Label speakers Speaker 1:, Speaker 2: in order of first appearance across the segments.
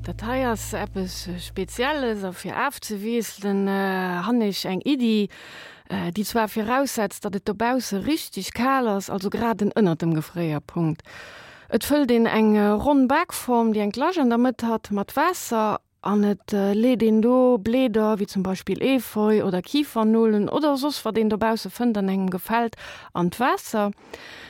Speaker 1: Dat hei ass eppes Spezielles a fir afzewiesselen han ech eng Iddi, déi zwar viraussetzt, datt et dobausse richteg kal ass, also grad en ënnert dem Gefréierpunkt. Et fëllt een eng ronn Bakform, déi eng Lach an der Mëtt hat, mat Waasser An et leet een do Bleeder, wéi zum Beispill Efeu oder Kifernolen oder soss wat een dobausse fënnt an engem gefält, an d'Waasser.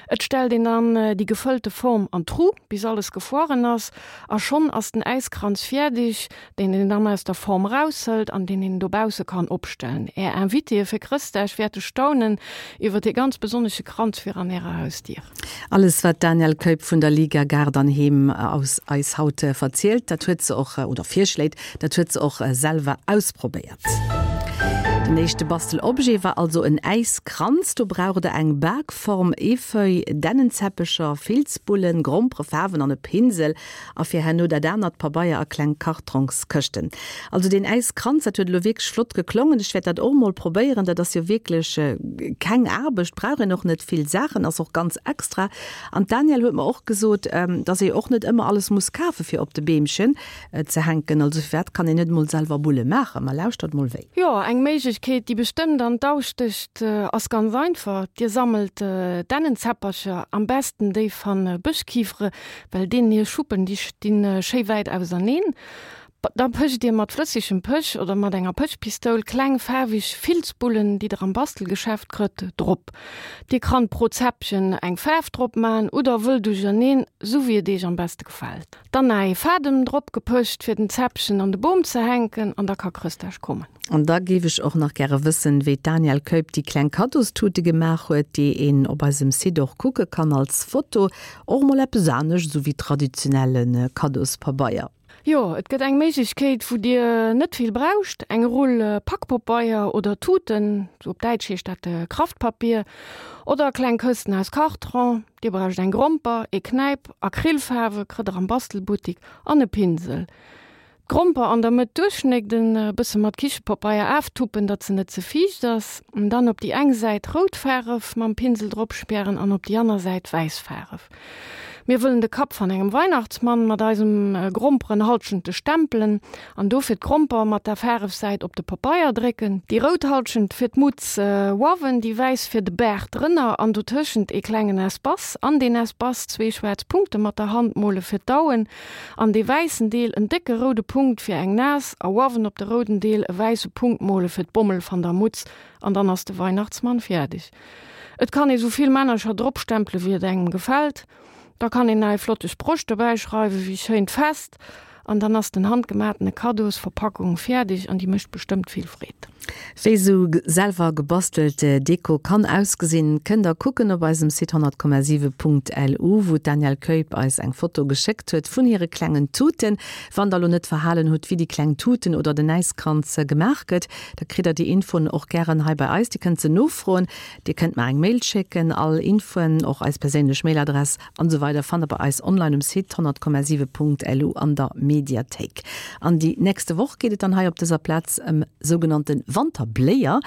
Speaker 1: Et stellt een dann déi gefëllte Form an d'Tru bis alles gefroren ass a schonn ass den Äiskranz fäerdeg, deen een dann aus der Form raushëlt an deen een dobausse kann opstellen. Är Invitéë fir Chrëstdag wäerte staunen iwwer dee ganz besonnesche Kranz virun ärer Hausdier.
Speaker 2: Alles wat d'Danièle Keup vun der Liga Gaart an Heem aus eis haut verzielt, dat huet se och, oder virschléit, dat huet se och selwer ausprobéiert. Den éischte Bastelobjet war also en Äiskranz. Do braucht der eng Bakform, Efeu, Dännenzäppecher, Filzbullen, Grompere, Faarwen an e Pinsel. A fir herno dat anert, Pabeier a kleng Kartrongskëschten. Also deen Äiskranz, dat huet elo wierklech flott geklongen. Ech wäert dat och mol probéieren. Dat ass jo wierklech keng Aarbecht, brauch een och net vill Saachen, ass och ganz extra. An d'Danièle huet mer och gesot, dass ee och net ëmmer alles muss kafe fir op de Beemchen ze hänken. Also firwat kann een net mol selwer Bulle maachen? Ma lauschtert mol wéi.
Speaker 1: Jo, eng Méiglechkeet, déi bestëmmt an d'Au stécht, ass ganz einfach, Dir sammelt Dännenzäppercher, am besten déi van Bëschkifere, Well deenen hir Schuppen, déi stinn schéi wäit auserneen. Da pëcht dir mat flëssegem Pëch oder mat enger Pëchpistoul kleng faarweg Filzbullen, déi der am Bastelgeschäft krëtt, drop. Dir krannt pro Zäppchen eng Faarf drop man oder wëll duercherneen, sou wéi et eech am beste gefält. Dann nach ee Fadem drop gepëcht fir den Zäppchen an de Boom ze hänken an da ka Chrëschtdag kommen.
Speaker 2: An da géif ech och nach gäre wëssen, wéi d'Danièle Keup déi kleng Kaddostute gemaach huet, déi een op eisem Site och kucke kann als Foto. Och mol eppes anescht esou wéi traditionelle Kaddospabeier.
Speaker 1: Jo, et gëtt eng Méiglechkeet, wou Dir net vill brauscht, eng Rull Pakpopeier oder Tuten, op Däitsch heescht dat Kraftpapier, oder kleng Kësten aus Kartron. Dir brauscht eng Gromper, ee Knäip, Acrylfaarwe kritt der am Bastelbuttik an e Pinsel. D'Gromper an der Mëtt duerchschnégden, e bësse mat Kichepapeier aaftuppen, datt se net ze fiicht ass. Dann op déi eng Säit rout Faaref mam Pinsel drop spären an op déi anner Säit wäiss Faaref. Mir wëllen de Kapp van engem Weihnachtsmann mat eisem Gromperenhalschente stempelen an dofir d'Gromper mat der Faarefsäit op de Papeier drécken. Déi rout Halschent fir d'Mutz uawen, déi wäiss fir de Baart drënner an dotëschent ee klengen Espace. An deen Espace zwee schwaarz Punkte mat der Hand mole fir d'Auen. An dee wäissen Deel en décke roude Punkt fir eng Nas a uawen op de rouden Deel e wäisse Punkt mole fir d'Bommel van der Mutz an dann ass de Weihnachtsmann fiärdeg. Et kann ee sou vill Männercher drop stempele wéi et engem gefällt. Da kann een nach ee flotte Sproch dobäi schreiwe wéi schéint Fest an dann ass den handgematene Kaddosverpackung fiärdeg an déi mécht bestëmmt vill Freed.
Speaker 2: Wéi sou selwer gebastelt Deko kann ausgesinn, kënnt der kucken op eisem Site 100,7.lu, wou d'Danièle Keup eis eng Foto geschéckt huet vun hire klengen Tuten. Wann der lo net verhalen hutt, wéi déi kleng Tuten oder den Äiskranz gemaach gëtt, da kritt der déi Infoen och gären hei bei eis. Dir kënnt se nofroen, dir kënnt mer eng Mail schécken. All Infoen, och eis perséinlech Mailadress an esou weider fannt der bei eis online um Site 100,7.lu an der Mediathéik. An déi nächste Woch geet et dann hei op dëser Plaz ëm sougenannte Wanterbléier.